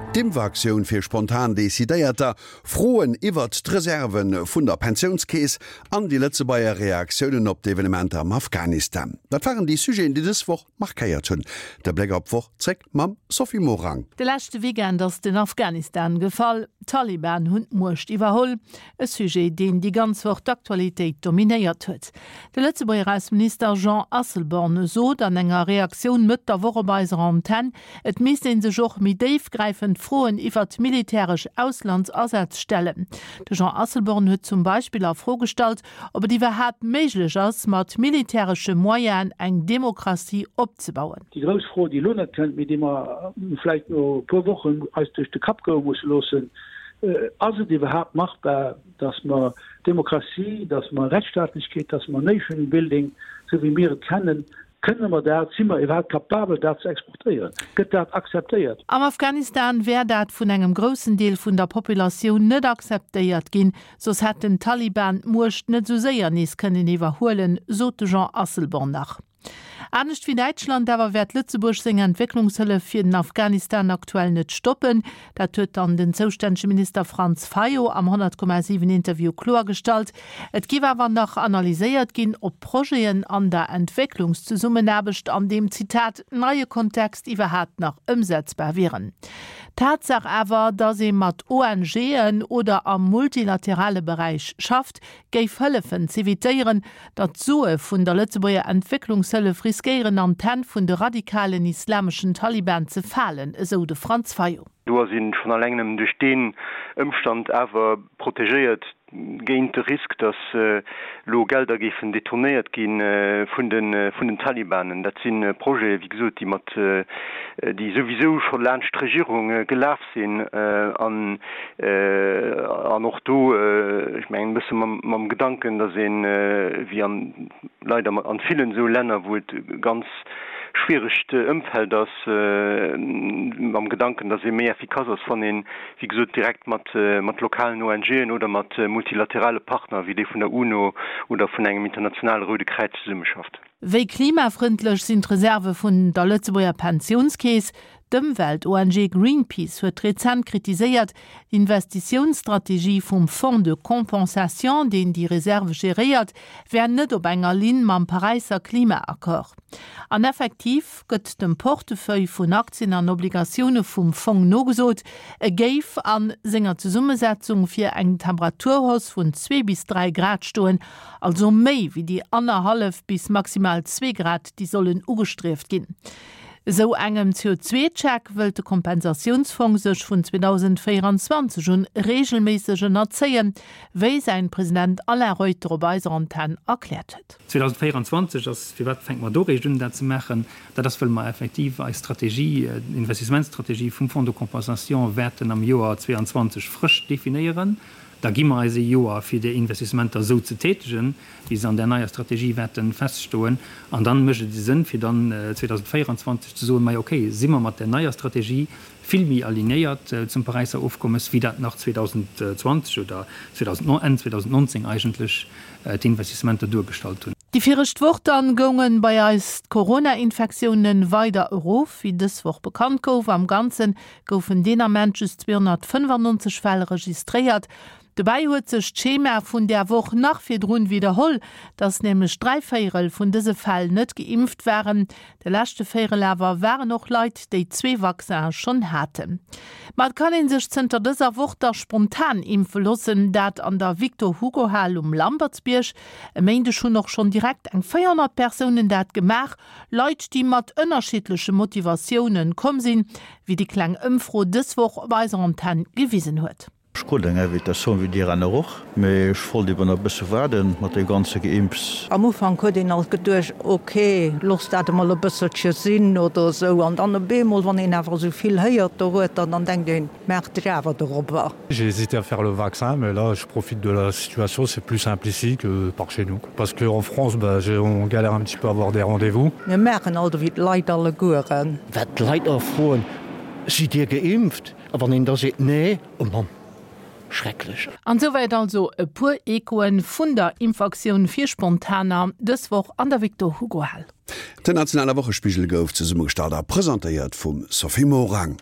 D'Impfaktioun fir spontan Decidéierter, Froen iwwert d'Reserve vun der Pensiounskeess an déi Lëtzebuerger Reaktiounen op d'Evenementer am Afghanistan. Dat waren déi Sujeten, déi dës Woch markéiert hunn. De Bléck op d'Woch zréck mam Sophie Morang. De leschte Weekend ass den Afghanistan gefall. D'Taliban hunn d'Muecht iwwerholl. E Sujet, deen déi ganz Woch d'Aktualitéit dominéiert huet. De Lëtzebuerger Ausseminister Jean Asselborn sot an enger Reaktioun Mëtt der Woch op eiser Antenn, et misst ee sech och méi déifgräifend Froen iwwert militäresch Auslandsasätz stellen. De Jean Asselborn huet zum Beispill a Fro gestallt, ob et iwwerhaapt méiglech ass, mat militäresche Moyenen eng Demokratie opzebauen. Déi grouss Fro, déi elo net kënnt, mee déi mer vläicht no e puer Wochen eis duerch de Kapp goe musse loossen, Ass et iwwerhaapt machbar, dass mer Demokratie, dass mer Rechtsstaatlechkeet, dass mer Nation building, esou wéi mir et kennen, kënne mer dat, si mer iwwerhaapt capabel, dat ze exportéieren? Gëtt dat akzeptéiert? Am Afghanistan wär dat vun engem groussen Deel vun der Populatioun net akzeptéiert ginn, soss hätten d'Taliban d'Muecht net esou séier nees kënnen iwwerhuelen, sot de Jean Asselborn nach. Anescht wéi Däitschland awer wäert Lëtzebuerg seng Entwécklungshëllef fir den Afghanistan aktuell net stoppen. Dat huet dann den zoustännege Minister Franz Fayot am 100,7 Interview kloergestallt. Et giff awer nach analyséiert ginn, ob Projeten an der Entwécklungszesummenaarbecht an deem, Zitat, neie Kontext iwwerhaapt nach ëmsetzbar wieren. Tatsaach awer, datt ee mat ONGen oder am multilaterale Beräich schafft, géif hëllefen z'evitéieren, datt d'Sue vun der Lëtzebuerger Entwécklungshëllef riskéieren an d'Hänn vun de radikalen islameschen Taliban ze falen, esou de Franz Fayot. Do ass een schonn alleng nëmmen duerch deen Ëmstand awer protegéiert géint de Risk, datt elo Gelder géifen detournéiert gi vun den Talibanen. Dat si Projete wéi gesot, déi mat, déi souwisou scho laanscht d'Regierung gelaf sinn an an och do, ech mengen, e bësse mam Gedanken, datt een, wéi an leider an villen esou Länner, wou et e ganz schwieregt Ëmfeld ass, mam Gedanken, datt ee méi effikass ass, wann een, wéi gesot, direkt mat lokalen ONGen oder mat multilaterale Partner wéi dee vun der UNO oder vun engem internationale Roude Kräiz zesummeschafft. Wéi klimafrëndlech sinn d'Reserve vun der Lëtzebuerger Pensiounskeess? D'Ëmwelt-ONG Greenpeace huet rezent kritiséiert, d'Investitiounsstrategie vum Fonds de compensation, deen déi Reserve geréiert, wär net op enger Linn mam Paräisser Klimaaccord. An effektiv gëtt dem Portefeuille vun Aktien an Obligatioune vum Fong nogesot, e géif a senger Zesummesetzung fir eng Temperaturhausse vun zwee bis 3 Grad stoen, Also méi wéi déi annerhallef bis maximal zwee Grad, déi sollen ugestrieft ginn. Esou engem CO2-Check wëllt de Kompensatiounsfong sech vun 2024 un reegelméisseg ënnerzéien, wéi säin President Alain Reuter op eiser Antenn erkläert huet. 2024 ass, firwat fänke mer do réischt un dat ze maachen? Dat ass, wëll mer effektiv eis Strategie, d'Investissementsstrategie vum Fonds de compensation wäerten am Joer 2022 frësch definéieren. Da gi mer eis ee Joer, fir déi Investissementer esou ze tätegen, wéi se an där neier Strategie wäerte feststoen. An dann mécht et e Sënn, fir dann 2024 ze soen, Majo okay, si mer mat där neier Strategie vill méi alignéiert zum Paräisser Ofkommes, wéi dat nach 2020 oder Enn 2019 eigentlech d'Investissementer duergestallt hunn. Déi viregt Woch dann goungen bei eis d'Corona-Infektiounen weider erof, wéi dës Woch bekannt gouf. Am Ganzen goufen deen Ament just 295 Fäll registréiert. Dobäi huet sech d'Schema vun där Woch nach virdrun widderholl, dass nämlech dräivéierel vun dëse Fäll net geimpft waren. De leschte Véierel awer waren och Leit, déi zwee Vaccine schonn haten. Ma et kann ee sech zënter dëser Woch da spontan impfe loossen, dat an der Victor-Hugo-Hal um Lampertsbierg. E Méindeg hunn och schonn direkt eng 400 Persounen dat gemaach. Leit, déi mat ënnerschiddleche Motivatiounen komm sinn, wéi déi kleng Ëmfro dës Woch op eiser Antenn gewisen huet. Ech krut eng Invitatioun, wéi dir aner och, mee ech wollt eben nach e bësse waarden mat deem ganze Geimps. Am Ufank huet een alt geduecht, ok, looss dat emol e bësselche sinn oder esou. An dann op eemol, wann een awer esou vill héiert dorueter, dann denkt een, maach dech awer dorobber. J'ai hésité à faire le vaccin mais là je profite de la situation, c'est plus simple ici que par chez nous parce que en France bah on galère un petit peu à avoir des rendez-vous. Mir maachen alt ewéi d'Leit allegueren. Wat d'Leit och froen, Sidd Dir geimpft? A wann een da seet, Nee, oh Mann, schrecklech. An souwäit also e puer Echoen vun der Impfaktioun fir Spontaner dës Woch an der Victor Hugo Hal. Den nationale Wochespigel gouf zesummegestallt a presentéiert vum Sophie Morang.